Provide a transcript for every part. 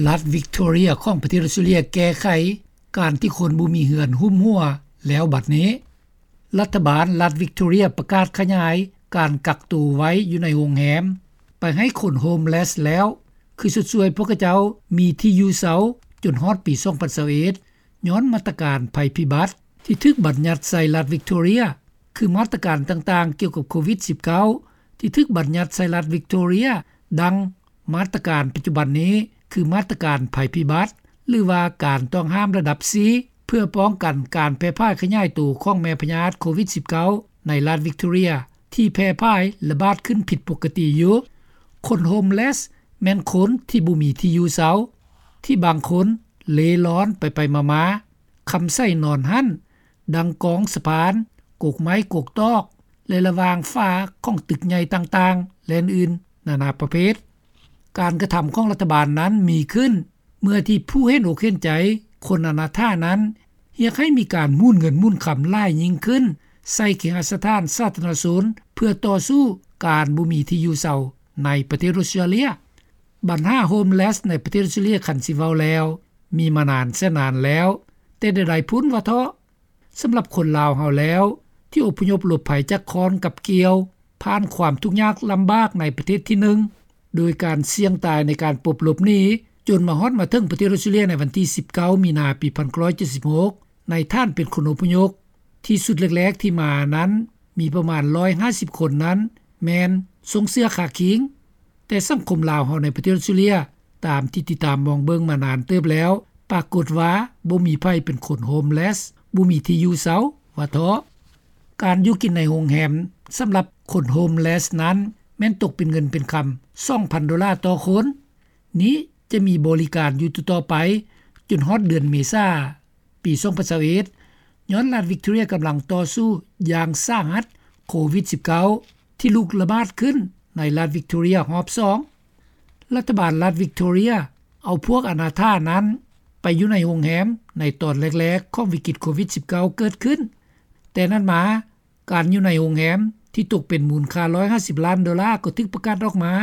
ລັດວິກຕໍເຣຍຂອງປະເທດອອສເຕຣເລັຽແກ້ໄຂການທີ່ຄົນບໍ່ມີເຮືອນຫຸ້ມຫົວແລ້ວບັດນີ້. ລັດຖະບານລັດວິກຕໍເຣຍປະກາດຂະຫຍາຍການກັກໂຕໄວ້ຢູ່ໃນໂຮງແຮມໄປໃຫ້ຄົນໂຮມເລສແລ້ວ ຄືຊົດຊ່ວຍພວກເຂົາເຈົ້າມີທີ່ຢູ່ເຊົາຈົນຮອດປີສອງພັນຊາວເອັດ ຍ້ອນມາດຕະການໄພພິບັດທີ່ຖືກບັນຍັດໃສ່ລັດວິກຕໍເຣຍ ຄືມາດຕະການຕ່າງໆກ່ຽວກັບໂຄວິດສິບເກົ້າ ທີ່ຖືກບັນຍັດໃສ່ລັດວິກຕໍເຣຍ ດັ່ງມາດຕະການປັດຈຸບັນນີ້ ຄືມາດຕະການໄພພິບັດ ຫຼືວ່າການຕ້ອງຫ້າມລະດັບສີ່ ເພື່ອປ້ອງກັນການແຜ່ຜາຍຂະຫຍາຍໂຕຂອງແມ່ພະຍາດໂຄວິດສິບເກົ້າ ໃນລັດວິກຕໍເຣຍ ທີ່ແຜ່ຜາຍລະບາດຂຶ້ນຜິດປົກກະຕິຢູ່. ຄົນໂຮມເລສແມ່ນຄົນທີ່ບໍ່ມີທີ່ຢູ່ເຊົາ ທີ່ບາງຄົນເລ່ລ່ອນໄປໆມາໆ ຄຳໃຊ້ນອນຫັ້ນ ດັ່ງກອງສະພານ, ກົກໄມ້ກົກຕອກ ແລະ ລະຫວ່າງຝາຂອງຕຶກໃຫຍ່ຕ່າງໆ ແລະ ອື່ນໆນານາປະເພດ. ການກະທຳຂອງລັດຖະບານນັ້ນມີຂຶ້ນ ເມື່ອທີ່ຜູ້ເຫັນອົກເຫັນໃຈຄົນອະນາຖານັ້ນ ຮຽກໃຫ້ມີການໝູນເງິນໝູນຄຳຫຼາຍຍິ່ງຂຶ້ນ ໃສ່ເຄຫະສະຖານສາທາລະນະຊົນ ເພື່ອຕໍ່ສູ້ການບໍ່ມີທີ່ຢູ່ເຊົາໃນປະເທດອອສເຕຣເລັຽ. ບັນຫາໂຮມເລສໃນປະເທດອອສເຕຣເລັຽ ຄັນຊິເວົ້າແລ້ວ ມີມານານແສນນານແລ້ວ ແຕ່ໃດໆພຸ້ນວ່າເທາະ. ສຳລັບຄົນລາວເຮົາແລ້ວ ທີ່ອົບພະຍົບຫຼົບໄພຈາກຄ້ອນກັບກ່ຽວ ຜ່ານຄວາມທຸກຍາກລຳບາກໃນປະເທດທີໜຶ່ງ ໂດຍການສ່ຽງຕາຍໃນການປົບຫຼົບໜີ ຈົນມາຮອດມາເຖິງປະເທດອອສເຕຣເລັຽໃນວັນທີສິບເກົ້າ ມີນາ ປີໜຶ່ງພັນເກົ້າຮ້ອຍເຈັດສິບຫົກ ໃນຖານເປັນຄົນອົບພະຍົບ ທີ່ຊຸດແລກໆທີ່ມານັ້ນ ມີປະມານຮ້ອຍຫ້າສິບຄົນນັ້ນ ແມ່ນສົ່ງເສື້ອຄາຄິງ. ແຕ່ສັງຄົມລາວເຮົາໃນປະເທດອອສເຕຣເລັຽ ຕາມທີ່ຕິດຕາມມອງເບິ່ງມານານເຕີບແລ້ວ ປາກົດວ່າບໍ່ມີໃຜເປັນຄົນໂຮມເລສ ບໍ່ມີທີ່ຢູ່ເຊົາວ່າເທາະ. ການຢູ່ກິນໃນໂຮງແຮມສຳລັບຄົນໂຮມເລສນັ້ນ ແມ່ນຕົກເປັນເງິນເປັນຄຳສອງພັນໂດລາຕໍ່ຄົນ. ນີ້ຈະມີບໍລິການຢູ່ຕໍ່ໆໄປ ຈົນຮອດເດືອນເມສາ ປີສອງພັນຊາວເອັດ ຍ້ອນລັດວິກຕໍເຣຍກຳລັງຕໍ່ສູ້ຢ່າງສາຫັດໂຄວິດສິບເກົ້າ ທີ່ລຸກລະບາດຂຶ້ນໃນລັດວິກຕໍເຣຍຮອບສອງ. ລັດຖະບານລັດວິກຕໍເຣຍເອົາພວກອະນາຖານັ້ນໄປຢູ່ໃນໂຮງແຮມໃນຕອນແລກໆຂອງວິກິດໂຄວິດສິບເກົ້າເກີດຂຶ້ນ. ແຕ່ນັ້ນມາ ການຢູ່ໃນໂຮງແຮມທີ່ຕົກເປັນມູນຄ່າຮ້ອຍຫ້າສິບລ້ານໂດລາກໍຖືກປະກາດອອກມາ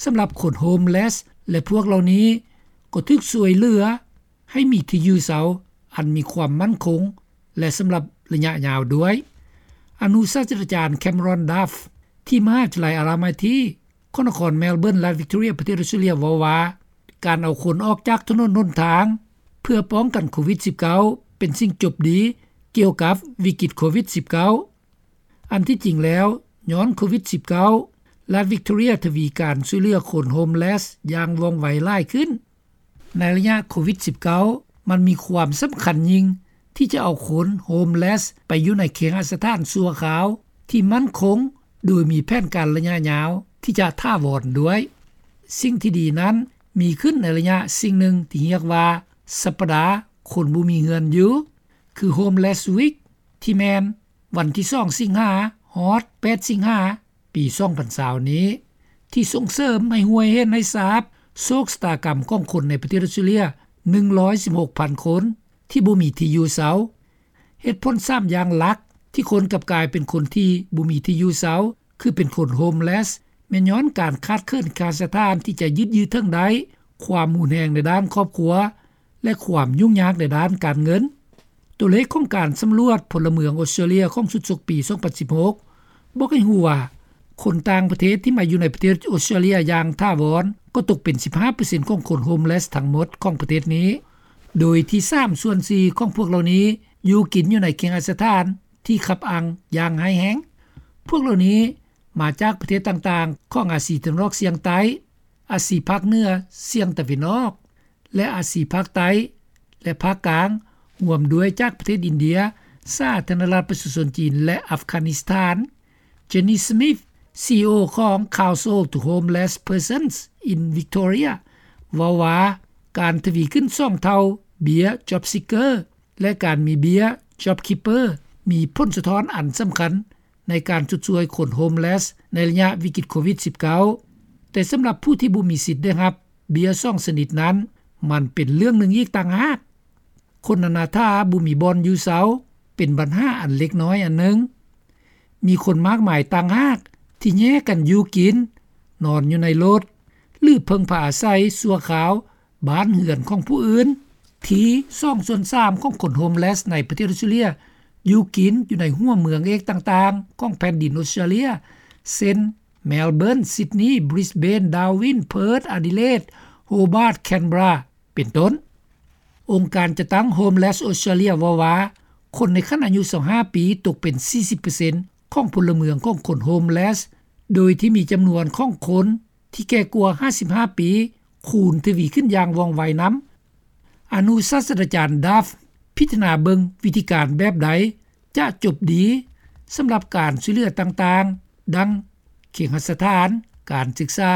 ສຳລັບຄົນໂຮມເລສ ແລະ ພວກເຫຼົ່ານີ້ກໍຖືກຊ່ວຍເຫຼືອ ໃຫ້ມີທີ່ຢູ່ເຊົາອັນມີຄວາມໝັ້ນຄົງ ແລະ ສຳລັບໄລຍະຍາວດ້ວຍ. ອະນຸສາດສະດາຈານ Cameron Duff ທີ່ມະຫາວິທະຍາໄລ Alamanty ຂອງນະຄອນ Melbourne ລັດ Victoria ປະເທດ Australia ເວົ້າວ່າ ການເອົາຄົນອອກຈາກຖະໜົນຫົນທາງ ເພື່ອປ້ອງກັນໂຄວິດສິບເກົ້າ ເປັນສິ່ງຈົບດີກ່ຽວກັບວິກິດໂຄວິດສິບເກົ້າ. ອັນທີ່ຈິງແລ້ວ ຍ້ອນໂຄວິດສິບເກົ້າ ລັດ Victoria ທະວີການຊ່ວຍເຫຼືອຄົນໂຮມເລສຢ່າງວ່ອງໄວຫຼາຍຂຶ້ນ. ໃນໄລຍະໂຄວິດສິບເກົ້າ ມັນມີຄວາມສຳຄັນຍິ່ງທີ່ຈະເອົາຄົນໂຮມເລສໄປຢູ່ໃນເຄຫະສະຖານຊົ່ວຄາວທີ່ໝັ້ນຄົງ ໂດຍມີແຜນການໄລຍະຍາວທີ່ຈະຖາວອນດ້ວຍ. ສິ່ງທີ່ດີນັ້ນມີຂຶ້ນໃນໄລຍະສິ່ງໜຶ່ງທີ່ຮຽກວ່າ ສັບປະດາຄົນບໍ່ມີເຮືອນຢູ່ ຄື Homeless Week ທີ່ແມ່ນວັນທີສອງ ສິງຫາ ຮອດ ແປດ ສິງຫາ ປີສອງພັນຊາວນີ້ ທີ່ສົ່ງເສີມໃຫ້ຮູ້ໃຫ້ເຫັນໃຫ້ຊາບໂຊກຊະຕາກຳຂອງຄົນໃນປະເທດອອສເຕຣເລັຽ ໜຶ່ງຮ້ອຍສິບຫົກພັນຄົນ ທີ່ບໍ່ມີທີ່ຢູ່ເຊົາ. ເຫດຜົນສາມຢ່າງຫຼັກທີ່ຄົນກັບກາຍເປັນຄົນທີ່ບໍ່ມີທີ່ຢູ່ເຊົາ ຄືເປັນຄົນໂຮມເລສ ແມ່ນຍ້ອນການຂາດເຂີນເຄຫະສະຖານທີ່ຈະຍຶດຢືນເຖິງໄດ້, ຄວາມຮຸນແຮງໃນດ້ານຄອບຄົວ ແລະ ຄວາມຫຍຸ້ງຍາກໃນດ້ານການເງິນ. ຕົວເລກຂອງການສຳຫຼວດພົນລະເມືອງອອສເຕຣເລັຽຂອງຊຸດສົກປີສອງພັນສິບຫົກ ບອກໃຫ້ຮູ້ວ່າ ຄົນຕ່າງປະເທດທີ່ມາຢູ່ໃນປະເທດອອສເຕຣເລັຽຢ່າງຖາວອນ ກໍຕົກເປັນສິບຫ້າເປີເຊັນຂອງຄົນໂຮມເລສທັງໝົດຂອງປະເທດນີ້, ໂດຍທີ່ສາມສ່ວນສີ່ຂອງພວກເຫຼົ່ານີ້ຢູ່ກິນຢູ່ໃນເຄຫະສະຖານທີ່ຂັບອາງຢ່າງຮ້າຍແຮງ. ພວກເຫຼົ່ານີ້ມາຈາກປະເທດຕ່າງໆຂອງອາຊີຕາເວັນອອກສ່ຽງໃຕ້, ອາຊີພາກເໜືອສ່ຽງຕາເວັນອອກ ແລະ ອາຊີພາກໃຕ້ ແລະ ພາກກາງ, ຮວມດ້ວຍຈາກປະເທດອິນເດຍ, ສາທາລະນະລັດປະຊາຊົນຈີນ ແລະ ອັຟການິສຖານ. Jenny Smith, ຊີອີໂອ ຂອງ Council to Homeless Persons in Victoria ເວົ້າວ່າ ການທະວີຂຶ້ນສອງເທົ່າເບ້ຍ Job Seeker ແລະ ການມີເບ້ຍ JobKeeper ມີຜົນສະທ້ອນອັນສຳຄັນ ໃນການຊົດຊ່ວຍຄົນໂຮມເລສໃນໄລຍະວິກິດໂຄວິດສິບເກົ້າ, ແຕ່ສຳລັບຜູ້ທີ່ບໍ່ມີສິດໄດ້ຮັບເບ້ຍສອງຊະນິດນັ້ນ ມັນເປັນເລື່ອງໜຶ່ງອີກຕ່າງຫາກ. ຄົນອະນາຖາບໍ່ມີບ່ອນຢູ່ເຊົາ ເປັນບັນຫາອັນເລັກນ້ອຍອັນໜຶ່ງ. ມີຄົນມາກມາຍຕ່າງຫາກທີ່ແຍກກັນຢູ່ກິນ, ນອນຢູ່ໃນລົດ ຫຼື ເພິ່ງພາອາໄສຊົ່ວຄາວ ບ້ານເຮືອນຂອງຜູ້ອື່ນ. ທີສອງສ່ວນສາມຂອງຄົນໂຮມເລສໃນປະເທດອອສເຕຣເລັຽຢູ່ກິນຢູ່ໃນຫົວເມືອງເອກຕ່າງໆຂອງແຜ່ນດິນອອສເຕຣເລັຽ ເຊັ່ນ Melbourne, Sydney, Brisbane, Darwin, Perth, Adelaide, Hobart, Canberra ເປັນຕົ້ນ. ອົງການຈັດຕັ້ງ Homeless Australia ເວົ້າວ່າ ຄົນໃນຂັ້ນອາຍຸຊາວຫ້າປີຕົກເປັນສີ່ສິບເປີເຊັນຂອງພົນລະເມືອງຂອງຄົນໂຮມເລສ ໂດຍທີ່ມີຈຳນວນຂອງຄົນທີ່ແກ່ກວ່າຫ້າສິບຫ້າປີ ຄູນທະວີຂຶ້ນຢ່າງວ່ອງໄວນຳ. ອະນຸສາດສະດາຈານ Duff ພິຈາລະນາເບິ່ງວິທີການແບບໃດຈະຈົບດີສຳລັບການຊ່ວຍເຫຼືອຕ່າງໆ ດັ່ງ ເຄຫະສະຖານ, ການສຶກສາ,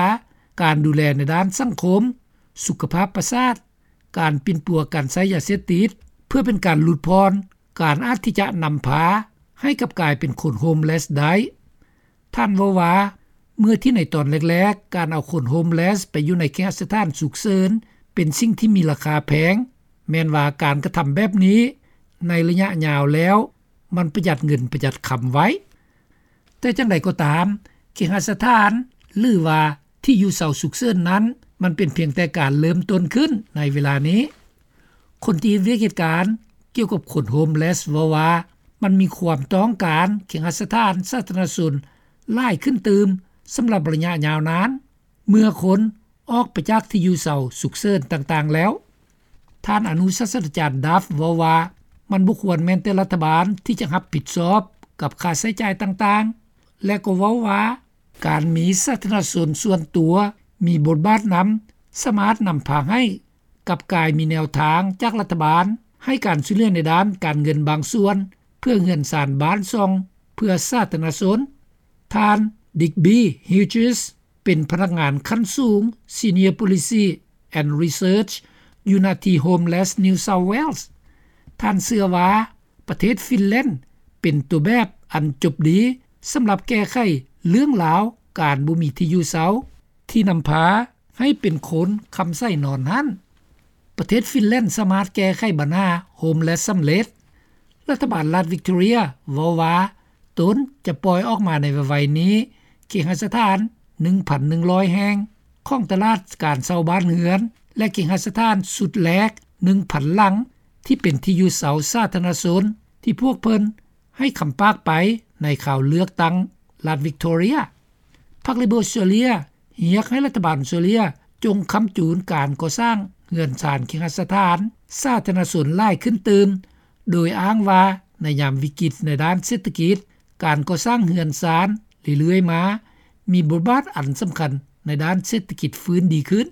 ການດູແລໃນດ້ານສັງຄົມ, ສຸຂະພາບປະສາດ, ການປິ່ນປົວການໃຊ້ຢາເສບຕິດ ເພື່ອເປັນການຫຼຸດຜ່ອນການອາດທີ່ຈະນຳພາໃຫ້ກັບກາຍເປັນຄົນໂຮມເລສໄດ້. ທ່ານເວົ້າວ່າ ເມື່ອທີ່ໃນຕອນແລກໆ ການເອົາຄົນໂຮມເລສໄປຢູ່ໃນເຄຫະສະຖານສຸກເສີນເປັນສິ່ງທີ່ມີລາຄາແພງ, ແມ່ນວ່າການກະທຳແບບນີ້ໃນໄລຍະຍາວແລ້ວ ມັນປະຢັດເງິນປະຢັດຄຳໄວ້. ແຕ່ຈັ່ງໃດກໍຕາມ, ເຄຫະສະຖານ ຫຼືວ່າທີ່ຢູ່ເຊົາສຸກເສີນນັ້ນ ມັນເປັນພຽງແຕ່ການເລີ່ມຕົ້ນຂຶ້ນໃນເວລານີ້. ຄົນທີ່ເຮັດວຽກເຮັດການກ່ຽວກັບຄົນໂຮມເລສເວົ້າວ່າ ມັນມີຄວາມຕ້ອງການເຄຫະສະຖານສາທາລະນະຊົນຫຼາຍຂຶ້ນຕື່ມສຳລັບໄລຍະຍາວນານ ເມື່ອຄົນອອກໄປຈາກທີ່ຢູ່ເຊົາສຸກເສີນຕ່າງໆແລ້ວ. ທ່ານອະນຸສາດສະດາຈານ Duff ເວົ້າວ່າ ມັນບໍ່ຄວນແມ່ນແຕ່ລັດຖະບານທີ່ຈະຮັບຜິດຊອບກັບຄ່າໃຊ້ຈ່າຍຕ່າງໆ ແລະກໍເວົ້າວ່າ ການມີສາທາລະນະຊົນສ່ວນຕົວມີບົດບາດນຳ ສາມາດນຳພາໃຫ້ກັບກາຍມີແນວທາງຈາກລັດຖະບານໃຫ້ການຊ່ວຍເຫຼືອໃນດ້ານການເງິນບາງສ່ວນ ເພື່ອເຮືອນຊານບ້ານຊ່ອງເພື່ອສາທາລະນະຊົນ. ທ່ານ Digby Hughes ເປັນພະນັກງານຂັ້ນສູງ Senior Policy and Research ຢູ່ນະທີ່ Homeless New South Wales. ທ່ານເຊື່ອວ່າ ປະເທດຟິນແລນເປັນຕົວແບບອັນຈົບດີສຳລັບແກ້ໄຂເລື່ອງລາວການບໍ່ມີທີ່ຢູ່ເຊົາ ທີ່ນຳພາໃຫ້ເປັນຄົນຄຳໃສນອນຫັ້ນ. ປະເທດຟິນແລນສາມາດແກ້ໄຂບັນຫາໂຮມເລສສຳເລັດ. ລັດຖະບານລັດວິກຕໍເຣຍເວົ້າວ່າ ຕົນຈະປ່ອຍອອກມາໃນໄວໆນີ້ ເຄຫະສະຖານ ໜຶ່ງພັນໜຶ່ງຮ້ອຍແຫ່ງຂອງຕະຫຼາດການເຊົ່າບ້ານເຮືອນ ແລະ ເຄຫະສະຖານຊຸດແລກ ໜຶ່ງພັນຫຼັງ ທີ່ເປັນທີ່ຢູ່ເຊົາສາທາລະນະຊົນ ທີ່ພວກເພິ່ນໃຫ້ຄຳປາກໄປໃນຄາວເລືອກຕັ້ງລັດວິກຕໍເຣຍ. ພັກ Labor Australia ຮຽກໃຫ້ລັດຖະບານອອສເຕຣເລັຽຈົ່ງຄ້ຳຈູນການກໍ່ສ້າງເຮືອນຊານເຄຫະສະຖານສາທາລະນະຊົນຫຼາຍຂຶ້ນຕື່ມ ໂດຍອ້າງວ່າໃນຍາມວິກິດໃນດ້ານເສດຖະກິດ ການກໍ່ສ້າງເຮືອນຊານເລື້ອຍໆມາ ມີບົດບາດອັນສຳຄັນໃນດ້ານເສດຖະກິດຟື້ນດີຂຶ້ນ.